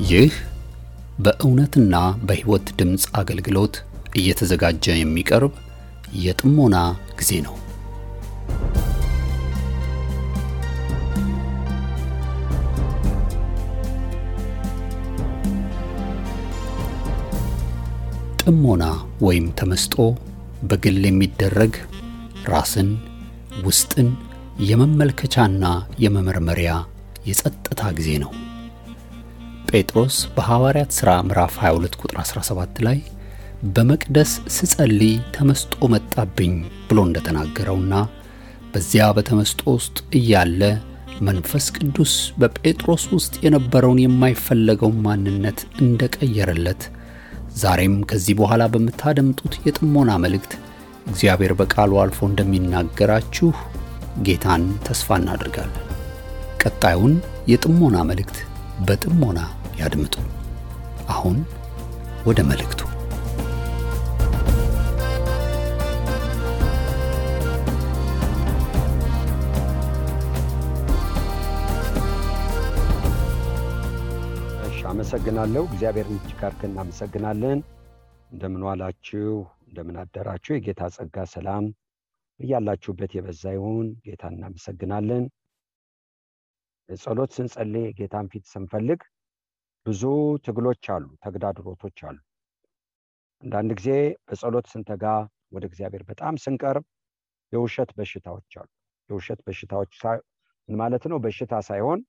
ይህ በእውነትና በሕይወት ድምጽ አገልግሎት እየተዘጋጀ የሚቀርብ የጥሞና ጊዜ ነው። ጥሞና ወይም ተመስጦ በግል የሚደረግ ራስን ውስጥን የመመልከቻና የመመርመሪያ የጸጥታ ጊዜ ነው። ጴጥሮስ በሐዋርያት ሥራ ምዕራፍ 22 ቁጥር 17 ላይ በመቅደስ ስጸልይ ተመስጦ መጣብኝ ብሎ እንደተናገረውና በዚያ በተመስጦ ውስጥ እያለ መንፈስ ቅዱስ በጴጥሮስ ውስጥ የነበረውን የማይፈለገው ማንነት እንደቀየረለት ዛሬም ከዚህ በኋላ በመታደምጡት የጥሞና መልእክት እግዚአብሔር በቃሉ አልፎ እንደሚናገራችሁ ጌታን ተስፋ እናደርጋለን። ቀጣዩን የጥሞና መልእክት በጥሞና ያድምጡ። አሁን ወደ መልእክቱ። አመሰግናለሁ። እግዚአብሔርን እጅግ አድርገን እናመሰግናለን። እንደምን ዋላችሁ፣ እንደምን አደራችሁ። የጌታ ጸጋ ሰላም በያላችሁበት የበዛ ይሁን። ጌታን እናመሰግናለን። ጸሎት ስንጸልይ ጌታን ፊት ስንፈልግ ብዙ ትግሎች አሉ፣ ተግዳሮቶች አሉ። አንዳንድ ጊዜ በጸሎት ስንተጋ ወደ እግዚአብሔር በጣም ስንቀርብ የውሸት በሽታዎች አሉ። የውሸት በሽታዎች ምን ማለት ነው? በሽታ ሳይሆን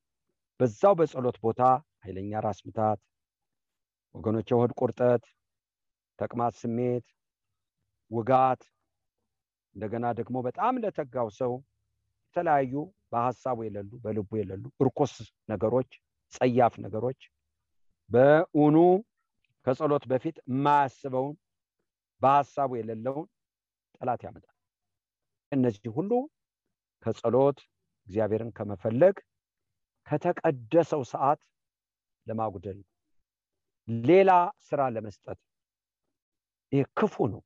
በዛው በጸሎት ቦታ ኃይለኛ ራስ ምታት፣ ወገኖች የሆድ ቁርጠት፣ ተቅማጥ ስሜት፣ ውጋት፣ እንደገና ደግሞ በጣም ለተጋው ሰው የተለያዩ በሐሳቡ የሌሉ በልቡ የሌሉ እርኩስ ነገሮች፣ ጸያፍ ነገሮች በእውኑ ከጸሎት በፊት የማያስበውን በሐሳቡ የሌለውን ጠላት ያመጣል። እነዚህ ሁሉ ከጸሎት እግዚአብሔርን ከመፈለግ ከተቀደሰው ሰዓት ለማጉደል ሌላ ስራ ለመስጠት ይህ ክፉ ነው።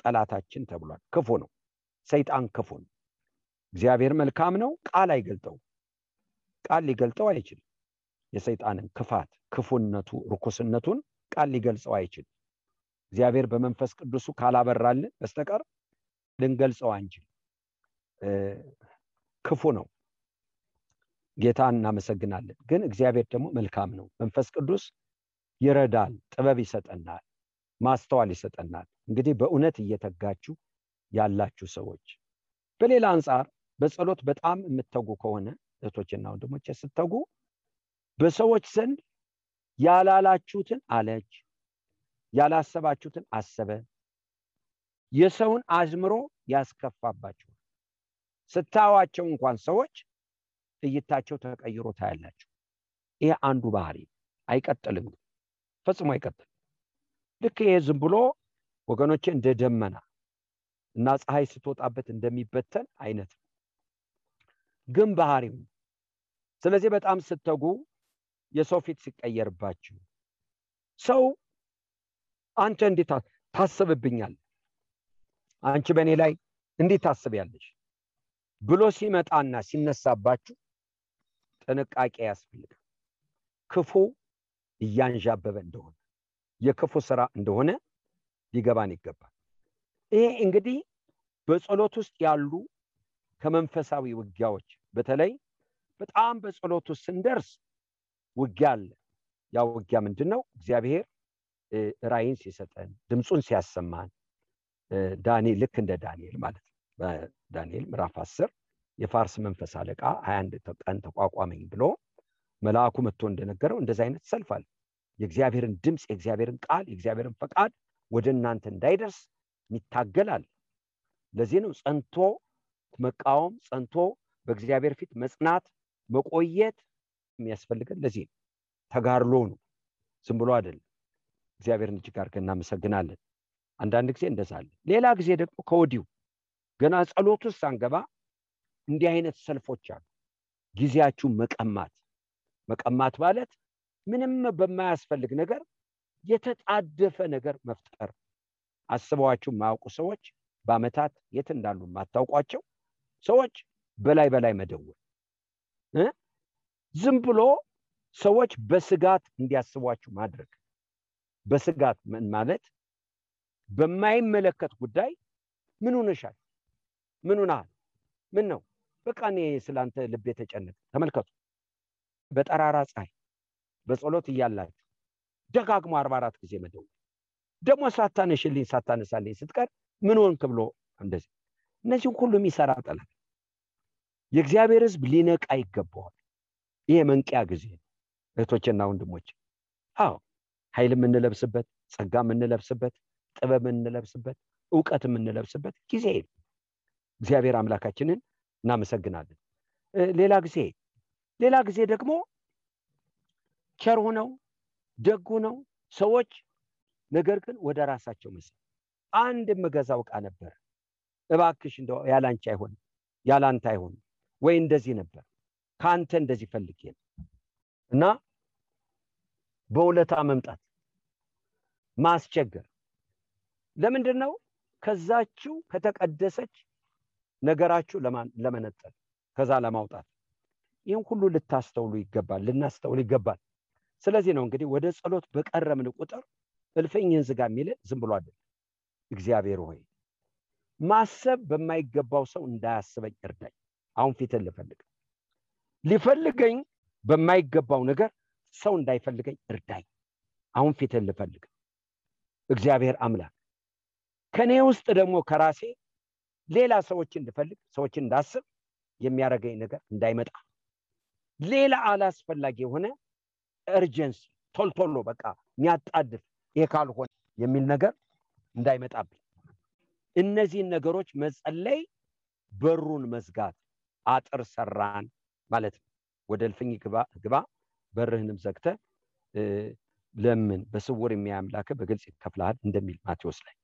ጠላታችን ተብሏል። ክፉ ነው። ሰይጣን ክፉ ነው። እግዚአብሔር መልካም ነው። ቃል አይገልጠው። ቃል ሊገልጠው አይችልም። የሰይጣንን ክፋት፣ ክፉነቱ፣ ርኩስነቱን ቃል ሊገልጸው አይችልም። እግዚአብሔር በመንፈስ ቅዱሱ ካላበራልን በስተቀር ልንገልጸው አንችል። ክፉ ነው። ጌታን እናመሰግናለን። ግን እግዚአብሔር ደግሞ መልካም ነው። መንፈስ ቅዱስ ይረዳል፣ ጥበብ ይሰጠናል፣ ማስተዋል ይሰጠናል። እንግዲህ በእውነት እየተጋችሁ ያላችሁ ሰዎች፣ በሌላ አንፃር በጸሎት በጣም የምትተጉ ከሆነ እህቶችና ወንድሞች ስትተጉ በሰዎች ዘንድ ያላላችሁትን አለች፣ ያላሰባችሁትን አሰበ፣ የሰውን አዝምሮ ያስከፋባችሁ ስታዋቸው እንኳን ሰዎች እይታቸው ተቀይሮ ታያላችሁ። ይሄ አንዱ ባህሪ አይቀጥልም፣ ፈጽሞ አይቀጥልም። ልክ ይሄ ዝም ብሎ ወገኖቼ እንደ ደመና እና ፀሐይ ስትወጣበት እንደሚበተን አይነት ግን ባህሪው። ስለዚህ በጣም ስትተጉ የሰው ፊት ሲቀየርባችሁ፣ ሰው አንተ እንዴት ታስብብኛለህ፣ አንቺ በእኔ ላይ እንዴት ታስቢያለሽ ብሎ ሲመጣና ሲነሳባችሁ ጥንቃቄ ያስፈልጋል። ክፉ እያንዣበበ እንደሆነ የክፉ ስራ እንደሆነ ሊገባን ይገባል። ይሄ እንግዲህ በጸሎት ውስጥ ያሉ ከመንፈሳዊ ውጊያዎች፣ በተለይ በጣም በጸሎት ውስጥ ስንደርስ ውጊያ አለ። ያ ውጊያ ምንድነው? እግዚአብሔር ራእይን ሲሰጠን፣ ድምጹን ሲያሰማን፣ ዳንኤል ልክ እንደ ዳንኤል ማለት ነው። በዳንኤል ምዕራፍ 10 የፋርስ መንፈስ አለቃ 21 ቀን ተቋቋመኝ ብሎ መልአኩ መጥቶ እንደነገረው እንደዛ አይነት ሰልፍ አለ። የእግዚአብሔርን ድምጽ፣ የእግዚአብሔርን ቃል፣ የእግዚአብሔርን ፈቃድ ወደ እናንተ እንዳይደርስ ይታገላል። ለዚህ ነው ጸንቶ መቃወም፣ ጸንቶ በእግዚአብሔር ፊት መጽናት፣ መቆየት የሚያስፈልገን። ለዚህ ነው ተጋድሎ ነው፣ ዝም ብሎ አይደለም። እግዚአብሔርን እጅግ አድርገን እናመሰግናለን። አንዳንድ ጊዜ እንደዛ አለ። ሌላ ጊዜ ደግሞ ከወዲሁ ገና ጸሎት ውስጥ ሳንገባ እንዲህ አይነት ሰልፎች አሉ። ጊዜያችሁ መቀማት ማለት ምንም በማያስፈልግ ነገር የተጣደፈ ነገር መፍጠር። አስበዋችሁ የማያውቁ ሰዎች፣ በአመታት የት እንዳሉ የማታውቋቸው ሰዎች በላይ መደወል፣ ዝም ብሎ ሰዎች በስጋት እንዲያስቧችሁ ማድረግ። በስጋት ማለት በማይመለከት ጉዳይ ምን ሆነሻል? ምን ሆነሃል? ምን ነው? በቃ እኔ ስላንተ ልብ የተጨነቀ። ተመልከቱ፣ በጠራራ ፀሐይ በጸሎት እያላችሁ ደጋግሞ 44 ጊዜ መደወል፣ ደግሞ ሳታነሳልኝ ስትቀር ምን ሆንክ ብሎ እንደዚህ። እነዚህ ሁሉ የሚሰራ ጠላት። የእግዚአብሔር ሕዝብ ሊነቃ ይገባዋል። ይሄ መንቂያ ጊዜ ነው እህቶችና ወንድሞች። አዎ ኃይል የምንለብስበት፣ ጸጋ የምንለብስበት፣ ጥበብ የምንለብስበት፣ ዕውቀት የምንለብስበት ጊዜ ነው። እግዚአብሔር አምላካችንን እናመሰግናለን። ሌላ ጊዜ ደግሞ ቸር ሆነው ደግ ሆነው ሰዎች ነገር ግን ወደ ራሳቸው መስል አንድ የምገዛው ዕቃ ነበር፣ እባክሽ እንደው ያላንቺ አይሆንም፣ ያላንተ አይሆንም ወይ እንደዚህ ነበር ካንተ እንደዚህ ፈልጌ ነው እና በውለታ መምጣት ማስቸገር። ለምንድን ነው? ከዛችሁ ከተቀደሰች ነገራችሁ ለመነጠል ከዛ ለማውጣት። ይህን ሁሉ ልታስተውሉ ይገባል፣ ልናስተውል ይገባል። ስለዚህ ነው እንግዲህ ወደ ጸሎት በቀረብን ቁጥር እልፍኝህን ዝጋ የሚል ዝም ብሎ አይደለም። እግዚአብሔር ሆይ ማሰብ በማይገባው ሰው እንዳያስበኝ እርዳኝ። አሁን ፊትን ሊፈልገኝ በማይገባው ነገር ሰው እንዳይፈልገኝ እርዳኝ። አሁን ፊትን ልፈልግ። እግዚአብሔር አምላክ ከኔ ውስጥ ደግሞ ከራሴ ሌላ ሰዎችን እንድፈልግ ሰዎችን እንዳስብ የሚያደርገኝ ነገር እንዳይመጣ፣ ሌላ አላስፈላጊ የሆነ እርጀንሲ ቶልቶሎ በቃ የሚያጣድፍ ይሄ ካልሆነ የሚል ነገር እንዳይመጣብኝ፣ እነዚህን ነገሮች መጸለይ፣ በሩን መዝጋት፣ አጥር ሰራን ማለት ነው። ወደ እልፍኝ ግባ በርህንም ዘግተህ ለምን በስውር የሚያምላክ በግልጽ ይከፍልሃል እንደሚል ማቴዎስ ላይ።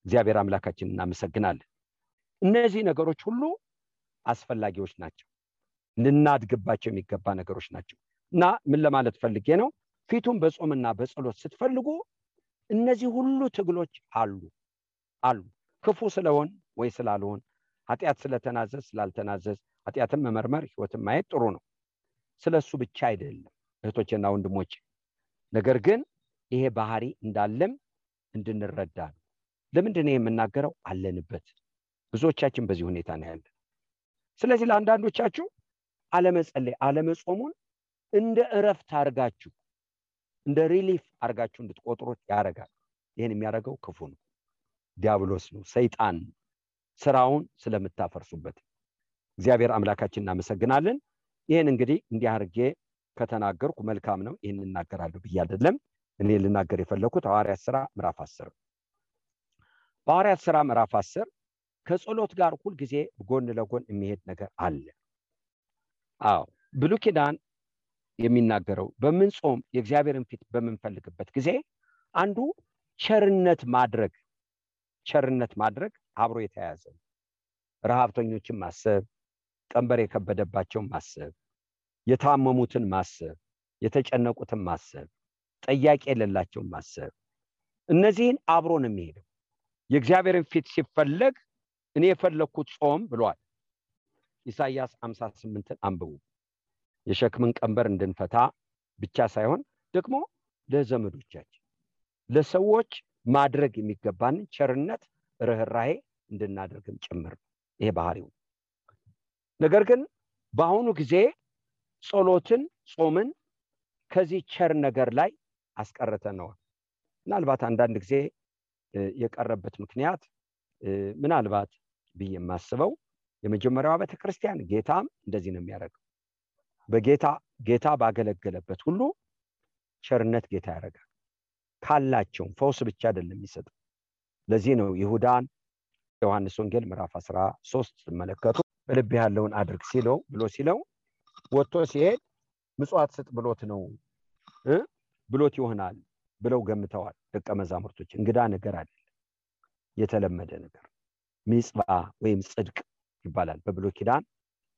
እግዚአብሔር አምላካችንን እናመሰግናለን። እነዚህ ነገሮች ሁሉ አስፈላጊዎች ናቸው፣ ልናድግባቸው የሚገባ ነገሮች ናቸው። እና ምን ለማለት ፈልጌ ነው? ፊቱን በጾምና በጸሎት ስትፈልጉ እነዚህ ሁሉ ትግሎች አሉ። ክፉ ስለሆን ወይ ስላልሆን፣ ኃጢአት ስለተናዘዝ ስላልተናዘዝ፣ ኃጢአትን መመርመር ህይወትን ማየት ጥሩ ነው። ስለሱ ብቻ አይደለም እህቶችና ወንድሞች። ነገር ግን ይሄ ባህሪ እንዳለም እንድንረዳ ነው። ለምንድን ነው የምናገረው? አለንበት። ብዙዎቻችን በዚህ ሁኔታ ነው ያለን። ስለዚህ ለአንዳንዶቻችሁ አለመጸለይ፣ አለመጾሙን እንደ እረፍት አርጋችሁ እንደ ሪሊፍ አርጋችሁ እንድትቆጥሩት ያደርጋል። ይሄን የሚያደርገው ክፉ ነው፣ ዲያብሎስ ነው፣ ሰይጣን ስራውን ስለምታፈርሱበት። እግዚአብሔር አምላካችን እናመሰግናለን። ይሄን እንግዲህ እንዲህ አድርጌ ከተናገርኩ መልካም ነው። ይሄን እናገራለሁ ብዬ አይደለም። እኔ ልናገር የፈለኩት ሐዋርያት ሥራ ምዕራፍ 10 በሐዋርያት ሥራ ምዕራፍ 10 ከጸሎት ጋር ሁሉ ጊዜ ጎን ለጎን የሚሄድ ነገር አለ። ብሉይ ኪዳን የሚናገረው በምንጾም የእግዚአብሔርን ፊት በምንፈልግበት ጊዜ አንዱ ቸርነት ማድረግ አብሮ የተያያዘ ነው። ረሃብተኞችን ማሰብ፣ ቀንበር የከበደባቸውን ማሰብ፣ የታመሙትን ማሰብ፣ የተጨነቁትን ማሰብ፣ ጠያቂ የሌላቸውን ማሰብ፣ እነዚህን አብሮ ነው የሚሄደው። የእግዚአብሔርን ፊት ሲፈለግ እኔ የፈለኩት ጾም ብሏል። ኢሳይያስ 58ን አንብቡ። የሸክምን ቀንበር እንድንፈታ ብቻ ሳይሆን ደግሞ ለዘመዶቻችን ለሰዎች ማድረግ የሚገባን ቸርነት፣ ርህራሄ እንድናደርግም ጭምር ይሄ ባህሪው። ነገር ግን በአሁኑ ጊዜ ጸሎትን፣ ጾምን ከዚህ ቸር ነገር ላይ አስቀርተነዋል። ምናልባት አንዳንድ ጊዜ የቀረበት ምክንያት ምናልባት ብዬ የማስበው የመጀመሪያው ቤተክርስቲያን ጌታም እንደዚህ ነው የሚያደርገው። ጌታ ባገለገለበት ሁሉ ቸርነት ጌታ ያደርጋል። ካላቸው ፈውስ ብቻ አይደለም የሚሰጠው። ለዚህ ነው ይሁዳን ዮሐንስ ወንጌል ምዕራፍ 13 ተመለከቱ። በልብ ያለውን አድርግ ሲለው ወጥቶ ሲሄድ ምጽዋት ስጥ ብሎት ይሆናል ብለው ገምተዋል ደቀ መዛሙርቶች። እንግዳ ነገር አይደለም፣ የተለመደ ነገር ሚጽባ ወይም ጽድቅ ይባላል። በብሉይ ኪዳን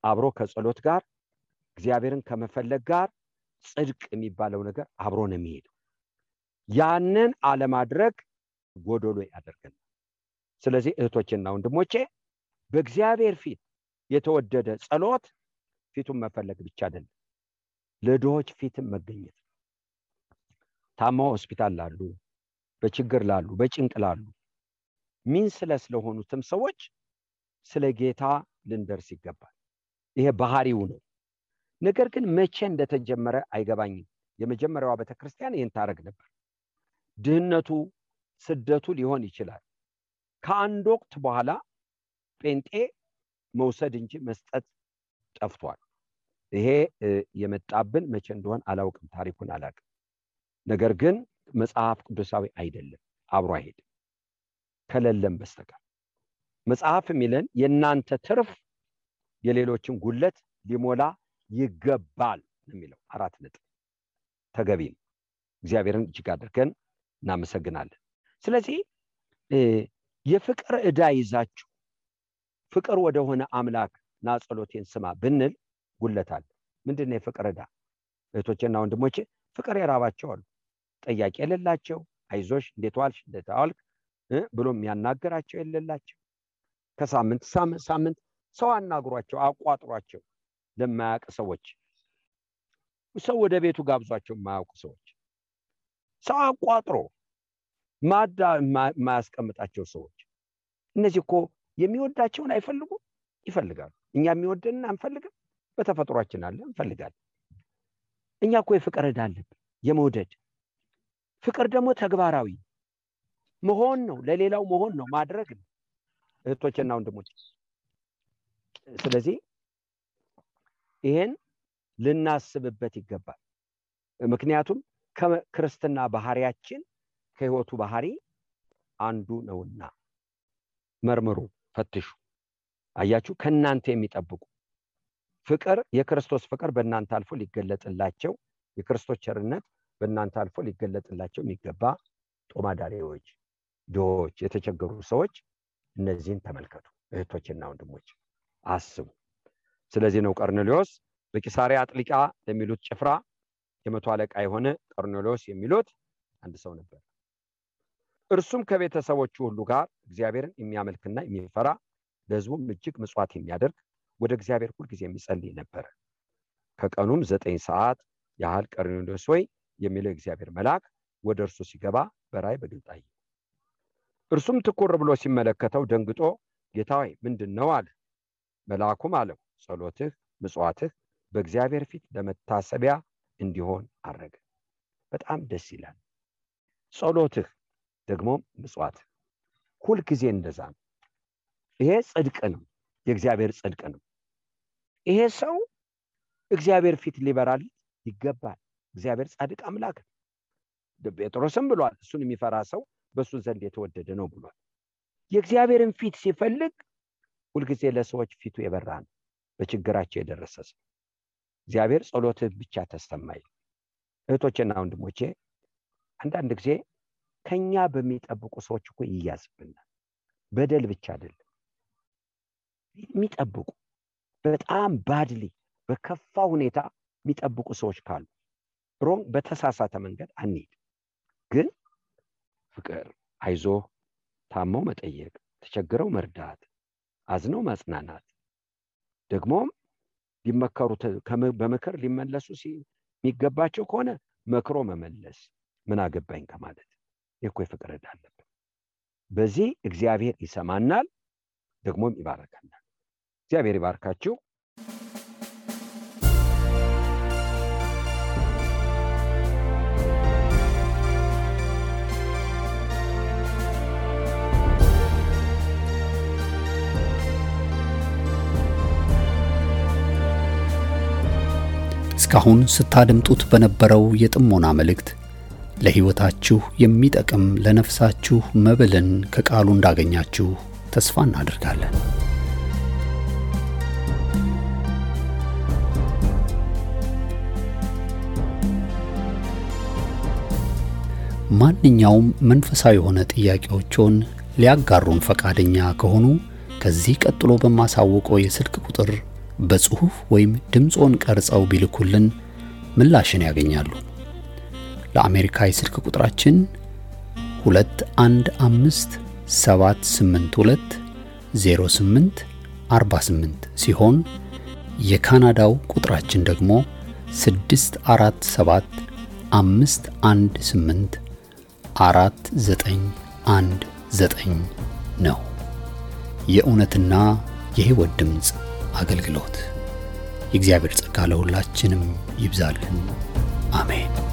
አብሮ ከጸሎት ጋር እግዚአብሔርን ከመፈለግ ጋር ጽድቅ የሚባለው ነገር አብሮ ነው የሚሄደው። ያንን አለማድረግ ጎዶሎ ያደርገናል። ስለዚህ እህቶችና ወንድሞቼ በእግዚአብሔር ፊት የተወደደ ጸሎት ፊቱን መፈለግ ብቻ አይደለም፣ ለድሆች ፊትም መገኘት። ታማው ሆስፒታል ላሉ፣ በችግር ላሉ፣ በጭንቅ ላሉ ስለሆኑትም ሰዎች ስለ ጌታ ልንደርስ ይገባል። ይሄ ባህሪው ነው። ነገር ግን መቼ እንደተጀመረ አይገባኝም። የመጀመሪያዋ ቤተክርስቲያን ይህን ታረግ ነበር። ድህነቱ፣ ስደቱ ሊሆን ይችላል። ከአንድ ወቅት በኋላ ጴንጤ መውሰድ እንጂ መስጠት ጠፍቷል። ይሄ የመጣብን መቼ እንደሆነ አላውቅም፣ ታሪኩን አላውቅም። ነገር ግን መጽሐፍ ቅዱሳዊ አይደለም፣ አብሮ አይሄድም ከሌለም በስተቀር። መጽሐፍ የሚለን የእናንተ ትርፍ የሌሎችን ጉለት ሊሞላ ይገባል የሚለው 4 ነጥብ ተገቢ ነው። እግዚአብሔርን እጅግ አድርገን እናመሰግናለን። ስለዚህ የፍቅር ዕዳ ይዛችሁ ፍቅር ወደሆነ አምላክ ና ጸሎቴን ስማ ብንል ጉለታል። ምንድነው የፍቅር ዕዳ? እህቶቼና ወንድሞቼ ፍቅር የራባቸው አሉ፣ ጠያቂ የሌላቸው፣ አይዞሽ እንዴት ዋልሽ እንዴት ዋልክ ብሎ የሚያናገራቸው የሌላቸው፣ ከሳምንት ሳምንት ሰው አናግሯቸው አቋጥሯቸው ለማያውቅ ሰዎች፣ ሰው ወደ ቤቱ ጋብዟቸው የማያውቁ ሰዎች፣ ሰው አቋጥሮ ማዳ ማያስቀምጣቸው ሰዎች፣ እነዚህ እኮ የሚወዳቸውን አይፈልጉም፣ ይፈልጋሉ። እኛ የሚወደንን አንፈልግም፣ በተፈጥሯችን አለ እንፈልጋለን። እኛ እኮ የፍቅር ዕዳ አለብን፣ የመውደድ ፍቅር ደግሞ ተግባራዊ መሆን ነው፣ ለሌላው መሆን ነው፣ ማድረግ ነው እህቶቼና ወንድሞቼ። ስለዚህ ይሄን ልናስብበት ይገባል። ምክንያቱም ከክርስትና ባህሪያችን ከህይወቱ ባህሪ አንዱ ነውና መርምሩ፣ ፈትሹ። አያችሁ፣ ከናንተ የሚጠብቁ ፍቅር የክርስቶስ ፍቅር በእናንተ አልፎ ሊገለጥላቸው፣ የክርስቶስ ቸርነት በእናንተ አልፎ ሊገለጥላቸው የሚገባ ጦማዳሪዎች፣ ድሆች፣ የተቸገሩ ሰዎች እነዚህን ተመልከቱ እህቶችና ወንድሞች፣ አስቡ። ስለዚህ ነው ቀርኔሌዎስ በቂሳሪያ አጥሊቃ ለሚሉት ጭፍራ የመቶ አለቃ የሆነ ቀርኔሌዎስ የሚሉት አንድ ሰው ነበር። እርሱም ከቤተሰቦቹ ሁሉ ጋር እግዚአብሔርን የሚያመልክና የሚፈራ ለሕዝቡም እጅግ ምጽዋት የሚያደርግ ወደ እግዚአብሔር ሁሉ ጊዜ የሚጸልይ ነበር። ከቀኑም 9 ሰዓት ያህል ቀርኔሌዎስ ሆይ የሚለው እግዚአብሔር መልአክ ወደ እርሱ ሲገባ በራእይ በግልጥ አየ። እርሱም ትኩር ብሎ ሲመለከተው ደንግጦ ጌታ ሆይ ምንድነው አለ። መልአኩም አለው ጸሎትህ ምጽዋትህ በእግዚአብሔር ፊት ለመታሰቢያ እንዲሆን አረገ። በጣም ደስ ይላል። ጸሎትህ ደግሞ ምጽዋትህ ሁሉ ጊዜ እንደዛ ነው። ይሄ ጽድቅ ነው፣ የእግዚአብሔር ጽድቅ ነው። ይሄ ሰው እግዚአብሔር ፊት ሊበራል ይገባል። እግዚአብሔር ጻድቅ አምላክ ነው። ጴጥሮስም ብሏል እሱን የሚፈራ ሰው በሱ ዘንድ የተወደደ ነው ብሏል። የእግዚአብሔርን ፊት ሲፈልግ ሁሉ ጊዜ ለሰዎች ፊቱ የበራ ነው፣ በችግራቸው የደረሰ ሰው። እግዚአብሔር ጸሎትህ ብቻ ተሰማይ። እህቶቼና ወንድሞቼ አንዳንድ ጊዜ ከኛ በሚጠብቁ ሰዎች እኮ ይያዝብናል። በደል ብቻ አይደለም የሚጠብቁ፣ በጣም ባድሊ በከፋ ሁኔታ የሚጠብቁ ሰዎች ካሉ ሮም በተሳሳተ መንገድ አንሄድ። ግን ፍቅር፣ አይዞ፣ ታመው መጠየቅ፣ ተቸግረው መርዳት፣ አዝነው ማጽናናት፣ ደግሞም ሊመከሩት በመከር ሊመለሱ የሚገባቸው ከሆነ መክሮ መመለስ፣ ምን አገባኝ ከማለት የኮ ፍቅር ዕዳ አለብን። በዚህ እግዚአብሔር ይሰማናል፣ ደግሞም ይባረካናል። እግዚአብሔር ይባርካችሁ። እስካሁን ስታደምጡት በነበረው የጥሞና መልእክት ለሕይወታችሁ የሚጠቅም ለነፍሳችሁ መብልን ከቃሉ እንዳገኛችሁ ተስፋ እናደርጋለን። ማንኛውም መንፈሳዊ የሆነ ጥያቄዎችን ሊያጋሩን ፈቃደኛ ከሆኑ ከዚህ ቀጥሎ በማሳወቀው የስልክ ቁጥር በጽሁፍ ወይም ድምጾን ቀርጸው ቢልኩልን ምላሽን ያገኛሉ። ለአሜሪካ የስልክ ቁጥራችን 2157820848 ሲሆን የካናዳው ቁጥራችን ደግሞ 647 518 4919 ነው። የእውነትና የሕይወት ድምፅ አገልግሎት። የእግዚአብሔር ጸጋ ለሁላችንም ይብዛልን። አሜን።